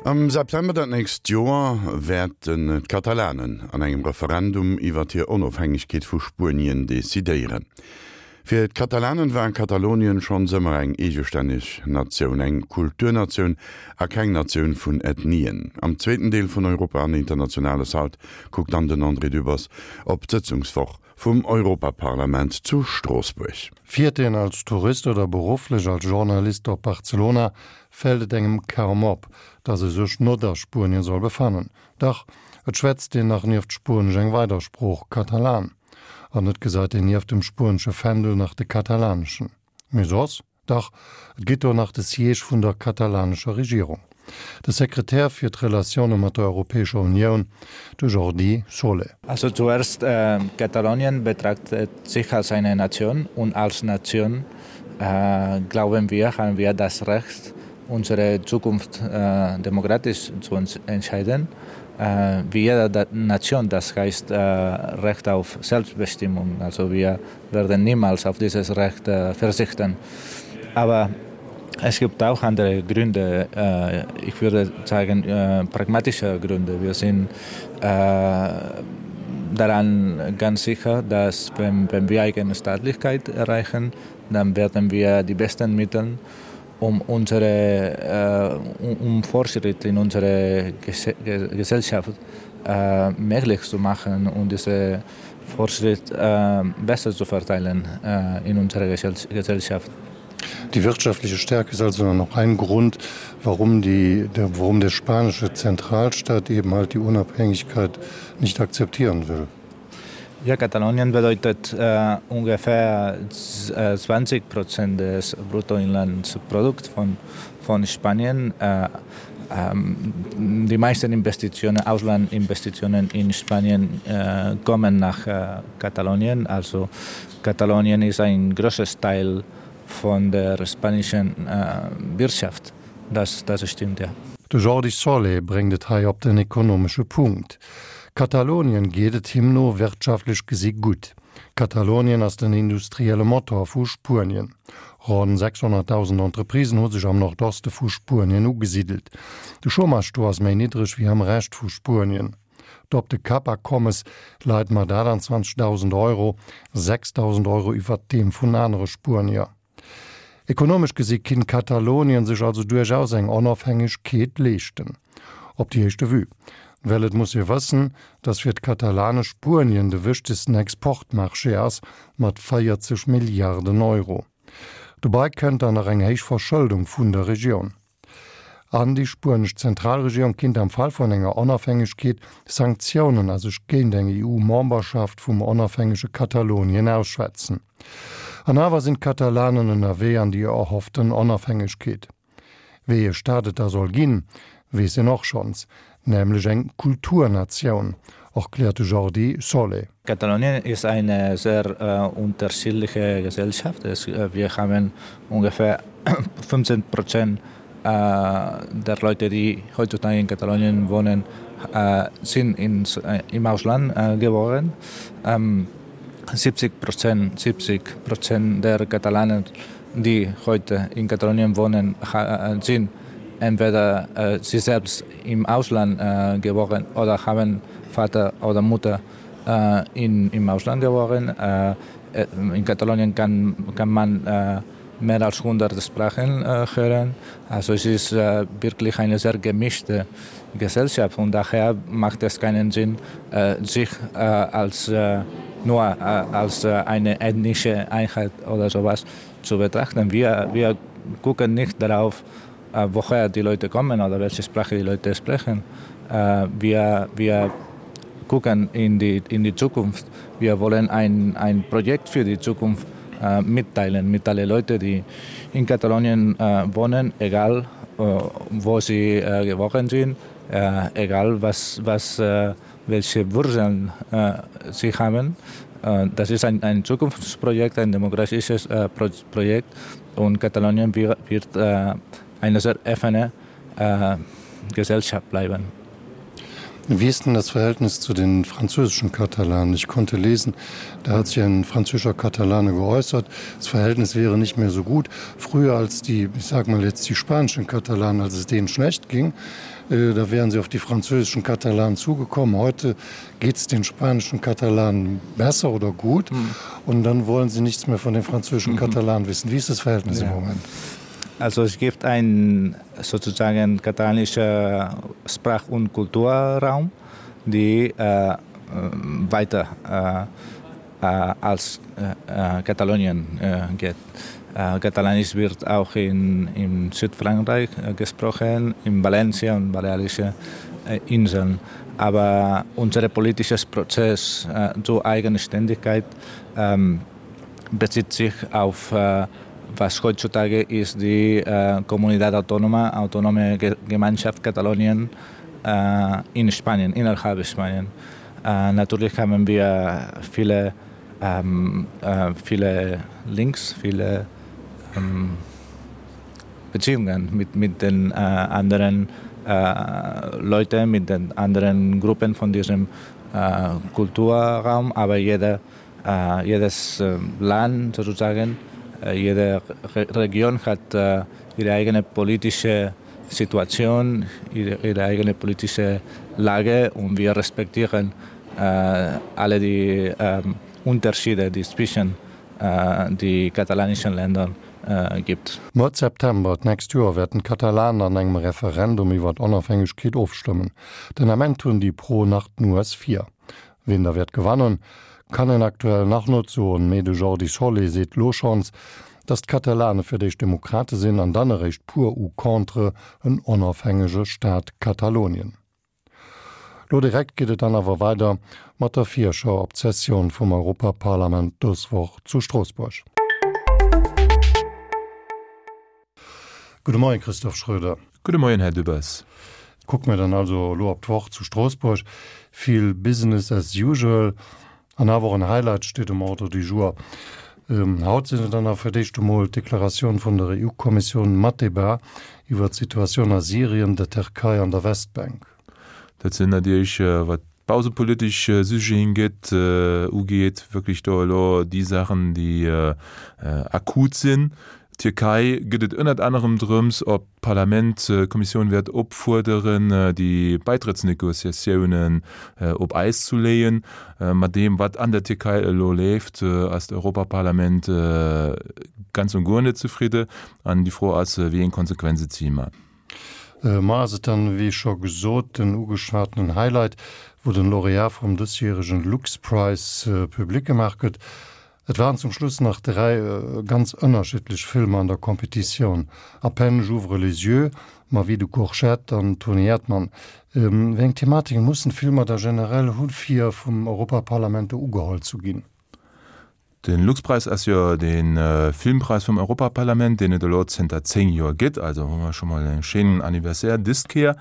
Am September dat nächst Joer wäerten d'Katalanen an engem Referendum iwwert hir Onofhängegkeet vu Spuenien decidéieren. Fir d'Katalanen war Katalonien schonns ëmmer eng eegestänneg Natioun, eng Kulturnatioun a keng Natioun vun Ethnien. Am zweeten Deel vun Europa an Internationales haut kuckt dann den André Dübbers op d'Sëtzungswoch vum Europaparlament zu Stroossbuerg. Fiert een als Tourist oder berufflech als Journalist op Barcelona, fält et engem kaum op, dass e sech not a Spuenien soll befannen. Dach, et schwätzt een nach nieft Spuenesch eng weider Sprooch, Katalan. An et gesait een nieft dem spuenesche Fändel nach de katalaneschen. Mee soss? Dach, et gétt do nach de Siège vun der katalanescher Regierung. De Sekretär fir d'Relatioune mat der Europäescher Unioun, de Jordi Solé. Also zuerst, Katalonien betrachtet sich als eine Nation und als Nation glauben wir, haben wir das Recht, unsere Zukunft demokratisch zu entscheiden. Wie jede Nation, das heißt Recht auf Selbstbestimmung. Also wir werden niemals auf dieses Recht verzichten. Aber es gibt auch andere Gründe, ich würde sagen pragmatische Gründe. Wir sind daran ganz sicher, dass wenn, wenn wir eigene Staatlichkeit erreichen, dann werden wir die besten Mittel um unsere um Fortschritt in unsere Gesellschaft möglich zu machen und diese Fortschritt besser zu verteilen in unserer Gesellschaft. Die wirtschaftliche Stärke ist also noch ein Grund, warum, die, der, warum der spanische Zentralstaat eben halt die Unabhängigkeit nicht akzeptieren will. Ja, Katalonien bedeutet äh, ungefähr 20 Prozent des Bruttoinlandsprodukts von, von Spanien. Äh, ähm, die meisten Investitionen, Auslandinvestitionen in Spanien äh, kommen nach äh, Katalonien. Also Katalonien ist ein großes Teil von der spanischen äh, Wirtschaft. Das, das stimmt ja. De Jordi Solé bréngt et hei op den ekonomesche Punkt. Katalonien geet et him no wirtschaftlech gesi gutt. Katalonien ass den industrielle Motor vu Spuenien. Ronn 600.000 Entreprisen hu sech am Nordoste vu Spuenien ugesiddelt. De Chômage do ass méi niddreg wéi am Rescht vu Spuenien. D'Op de Kapp-Akommes leit mat 28.000 Euro 6.000 Euro iwwert deem vun anere Spuenier. Ekonomesch gesi kinnt Katalonien sech also duerchaus eng Onofhängegkeet leeschten. Op déi éischte Vue. Well et muss ee wëssen, datt fir d'Katalane Spuenien de wichtegsten Exportmarché ass, mat 40 Milliarden Euro. Dobei kënnt dann nach eng héich Verschëldung vun der Regioun. An déi spuenesch Zentralregierung kinnt am Fall vun enger Onafhängegkeet Sanktiounen a sech géint eng EU-Memberschaft vum onafhängege Katalonien ausschwätzen. An awer sinn d'Katalanen ënnerwee an déi erhofften Onafhängegkeet. Wéi ee Staat et da soll ginn, weess een och schonns, nämlech eng Kulturnatioun, erkläert de Jordi Solé. Katalonien ist eine sehr unterschiedliche Gesellschaft. Es, wir haben ungefähr 15 Prozent der Leute, die heutzutage in Katalonien wohnen, sind ins, im Ausland geboren. 70 Prozent, 70 Prozent der Katalanen, die heute in Katalonien wohnen, sind entweder sie selbst im Ausland geboren oder haben Vater oder Mutter in, im Ausland geboren. In Katalonien kann, kann man mehr als 100 Sprachen hören. Also es ist wirklich eine sehr gemischte Gesellschaft und daher macht es keinen Sinn, sich als nur als eine ethnische Einheit oder sowas zu betrachten. Wir, wir gucken nicht darauf, woher die Leute kommen oder welche Sprache die Leute sprechen. Wir, wir gucken in die, in die Zukunft. Wir wollen ein, ein Projekt für die Zukunft mitteilen mit alle Leute, die in Katalonien wohnen, egal wo sie geboren sind, egal was, was, welche Wurzeln sie haben. Das ist ein, ein Zukunftsprojekt, ein demokratisches Projekt und Katalonien wird eine sehr offene Gesellschaft bleiben. Wie ist denn das Verhältnis zu den französischen Katalanen? Ich konnte lesen, da hat sich ein französischer Katalane geäußert, das Verhältnis wäre nicht mehr so gut. Früher als die, ich sag mal jetzt die spanischen Katalanen, als es denen schlecht ging, äh, da wären sie auf die französischen Katalanen zugekommen. Heute geht es den spanischen Katalanen besser oder gut mhm. und dann wollen sie nichts mehr von den französischen mhm. Katalanen wissen. Wie ist das Verhältnis ja. im Moment? Also es gibt ein sozusagen katalanischer Sprach- und Kulturraum, die äh, äh weiter äh, äh, als äh, äh Katalonien äh, geht. Äh, Katalanisch wird auch in, in Südfrankreich äh, gesprochen, in Valencia und Balearische äh, Inseln. Aber unser politisches Prozess äh, zur Eigenständigkeit ähm, bezieht sich auf äh, was heutzutage ist die äh, Comunidad Autónoma, Autonome Gemeinschaft Katalonien äh, in Spanien, innerhalb Spanien. Äh, natürlich haben wir viele, ähm, äh, viele Links, viele ähm, Beziehungen mit, mit den äh, anderen äh, Leuten, mit den anderen Gruppen von diesem äh, Kulturraum, aber jeder, äh, jedes äh, Land sozusagen, äh, jede Re Region hat äh, ihre eigene politische Situation, ihre, ihre eigene politische Lage und wir respektieren äh, alle die äh, Unterschiede, die es zwischen äh, die katalanischen Ländern äh, gibt. Mëtt September d'nächst Joer wäerten d'Katalanen an engem Referendum iwwer d'Onofhängegkeet ofstëmmen. Den Ament hunn déi Pro nach d'Nues vir. Wien da wäert gewannen, kann een aktuell nach net soen, mee de Jordi Solé seet lo schonns, datt d'Katalane fir d'éischt Demokrate sinn an dann eréischt pour ou contre en onofhängege Staat Katalonien. Lo direkt geet et dann awer weider mat der Virschau op d'Sessioun vum Europaparlament dës Woch zu Stroossbuerg. Gudde Moien, Christophe Schröder. Gudde Moien, Här Dübbers. Kucke mir dann also elo op d'Woch zu Stroossbuerg. Vill Business as usual an awer och en Highlight steet um Ordre du jour. Haut sinn et dann awer fir d'éischt emol d'Deklaratioun vun der EU-Kommissioun mat Debat iwwer d'Situatioun a Syrien, der Tërkei an der Westbänk. Dat sinn natierlech, wat bausepolitesch Sujeten gëtt, ugeet, wierklech do elo déi Saachen, déi akut sinn. Tierkei gëtt et ënnert anerem drëms, ob d'Parlament d'Kommissioun wäert opfuerderen, déi Baitrëttsnegociatiounen op Äis zu leeën. Mat deem, wat an der Tierkei elo leeft, ass d'Europaparlament ganz und guer net zefridde. An déi Fro ass, wéi eng Konsequenze zéie mer? Mar ass et dann, wéi scho gesot, den ugeschwatenen Highlight, wou den Lauréat vum dësjäregen Lux Prize public gemaach gëtt. Et waren zum Schluss nach 3 ganz ënnerschiddlech Filmer an der Competitioun, À peine j'ouvre les yeux, Ma vie de courgette an Toni Erdmann. Wéi eng Thematiken mussen d'Filmer da generell hu fir vum Europaparlament do ugeholl zu ginn? De Luxpreis ass jo de Filmpräis vum Europaparlament, deen et elo zënter 10 Joer gëtt. Also hu mer scho mol e schéinen Anniversaire dëst Kéier.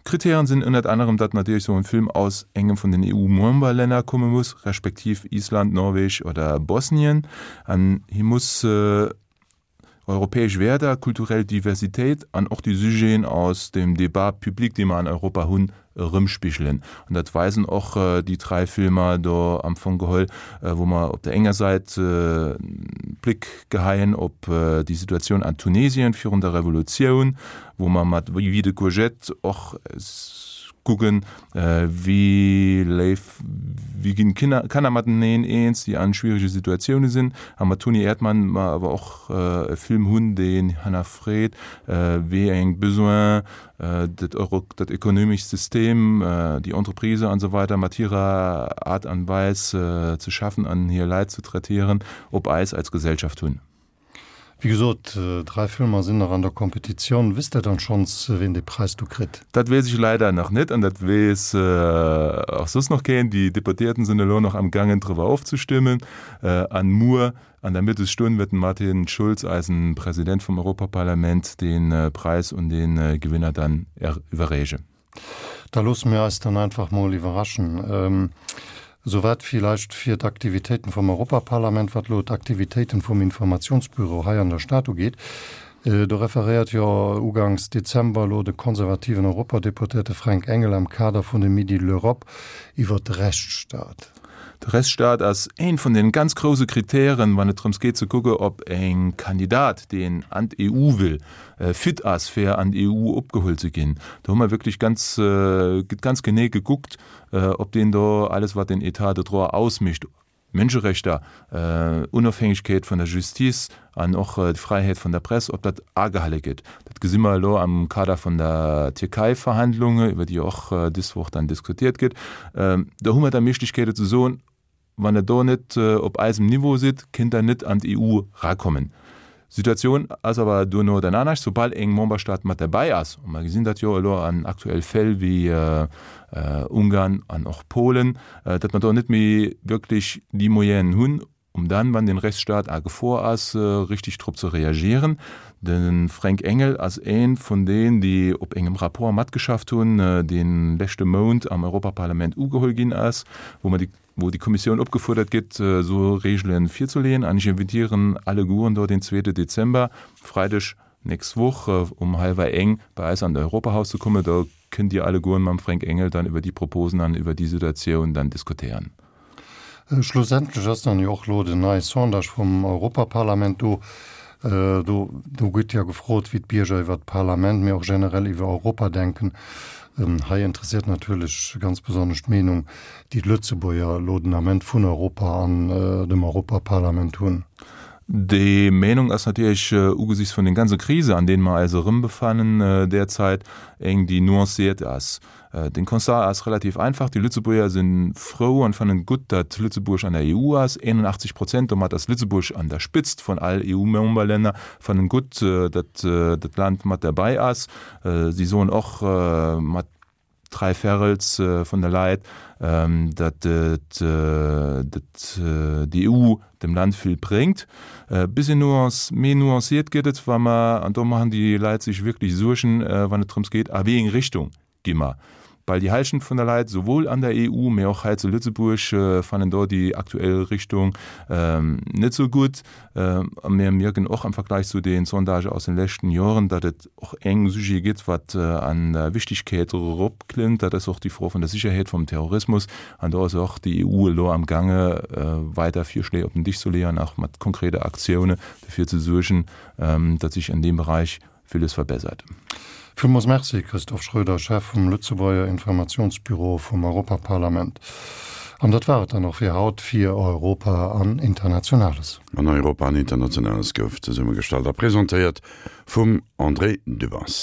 D'Kritären sinn ënnert anerem, datt natierlech esou en Film aus engem vun den EU-Memberlänner komme muss, respektiv Island, Norweg oder Bosnien. An hie muss europäesch Wäerter, kulturell Diversitéit an och déi Sujeten aus dem Débat public, dee mer an Europa hunn, erëmspigelen. An dat weisen och déi dräi Filmer do am Fong geholl, wou mer op der enger Säit e Bléck geheien op déi Situatioun an Tunesien virun der Revolutioun, wou mer mat Vie de courgette och kucken, wéi léif, wéi ginn d'Kanner mateneen eens, déi an schwierege Situatioune sinn. A mat Toni Erdmann mer awer och e Film hunn, deen hannerfreet, wéi eng Besoinen dat Euro, dat ekonomescht System, déi Entreprise an esou weider mat hirer Aart an Weis ze schaffen an hir Leit ze traitieren, op eis als Gesellschaft hunn. Wéi gesot, 3 Filmer sinn nach an der Competitioun. Wisst Der dann schonns, ween dee Präis do kritt? Dat weess ech leider nach net an dat weess och soss nach keen. Déi Deputéierten sinn elo nach am gaangen driwwer ofzestëmmen an muer an der Mëttesstonn wäert den Martin Schulz, eisen President vum Europaparlament, dee Präis un dee Gewinner dann iwwerreechen. Da loosse mir eis dann einfach mol iwwerraschen. Esouwäit villäicht fir d'Aktivitéiten vum Europaparlament. Wat elo d'Aktivitéiten vum Informationsbüro hei an der Stad ugeet. Do referéiert jo uganks Dezember elo de konservativen Europadeputéierte Fränk Engel am Kader vun de Midi de l'Europe iwwert de Rechtsstaat. De Rechtsstaat ass een vun den ganz grouse Kritären, wann et drëms geet ze kucke ob en Kandidat, deen an d'EU will, fit ass fir an d'EU opgeholl ze ginn. Do hu mer wierklech ganz, gëtt ganz genee gekuckt, ob deen do alles wat den État de droit ausmécht, Mënscherechter, Onofhängegkeet vun der Justice an och d'Fräiheet vun der Press, ob dat agehale gëtt. Dat gesi mer elo am Kader vun der Tierkei-Verhandlunge, iwwer déi och dës Woch dann diskutiert gëtt. Do hu mer da Méiglechkeete ze soen, Wann Der do net op eisem Niveau sidd, kënnt Der net an d'EU rakommen. D'Situatioun ass awer duerno dann anescht, soubal eng Memberstaat mat derbäi ass, a mer gesinn dat jo elo an aktuell Fäll wéi Ungarn an och Polen, datt mer do net méi wierklech déi Moyenen hunn, um dann, wann den Rechtsstaat a Gefor ass, richtig drop ze reagieren. De Fränk Engel ass ee vun deen, déi op engem Rapport matgeschafft hunn, dee leschte Mount am Europaparlament ugeholl ginn ass, wou mer déi wou déi Kommissioun opgefuerdert gëtt, esou Regele virzuleeën. An ech invitieren allegueren do den zweete Dezember, Freideg nächst Woch, um hallwer eng bei eis an d'Europahaus ze kommen. Do kënnt Dir allegueren mam Fränk Engel dann iwwer déi Proposen an iwwer déi Situatioun dann diskutéieren. Schlussendlech ass dann jo och elo den neie Sondage vum Europaparlament do. Do do gëtt jo gefrot, wéi d'Bierger iwwer d'Parlament, mee och generell iwwer Europa denken. Hei interesséiert natierlech ganz besonnesch d'Meenung, déi d'Lëtzebuerger elo den Ament vun Europa an dem Europaparlament hunn. Déi Meenung ass natierlech ugesichts vun den ganze Krise, an deenen mer eis erëmbefannen derzeit, eng, déi nuanciert ass. Den Constat ass relativ einfach, Déi Lëtzebuerger si frou an fannen et gutt, datt Lëtzebuerg an der EU ass. 81 Prozent, domat ass Lëtzebuerg an der Spitzt vun all EU-Memberlänner, fannen gutt, datt dat Land mat derbäi ass. Si soen och mat dräiverrels vun de Leit, datt déi EU dem Land vill bréngt. E bëssi nuance, méi nuanciert gëtt et, wa mer, an do maachen déi Leit sech wierklech Suergen, wann et drëms geet, a wéi eng Richtung gi mer. Bal déi Hallschent vun der Leit, souwuel an der EU, mee och hei zu Lëtzebuerg, fannen do déi aktuell Richtung net esou gutt. A mir mierken och am Vergleich zu den Sondagë aus den leschten Joren, datt et och eng Sujet gëtt, wat an der Wichtigkeet eropklëmmt, dat ass och déi Fro vun der Sicherheet, vum Terrorismus. An do ass och déi EU elo amgaange weider Virschléi op den Disch ze leeën, och mat konkrete Aktioune dofir ze suergen, datt sech an deem Beräich villes verbessert. Villmools Merci, Christophe Schroeder, Chef vum Lëtzebuerger Informationsbüro vum Europaparlament. An dat war et dann och fir haut fir Europa an Internationales. An Europa an Internationales gouf zesummegestallt a presentéiert vum André Dübbers.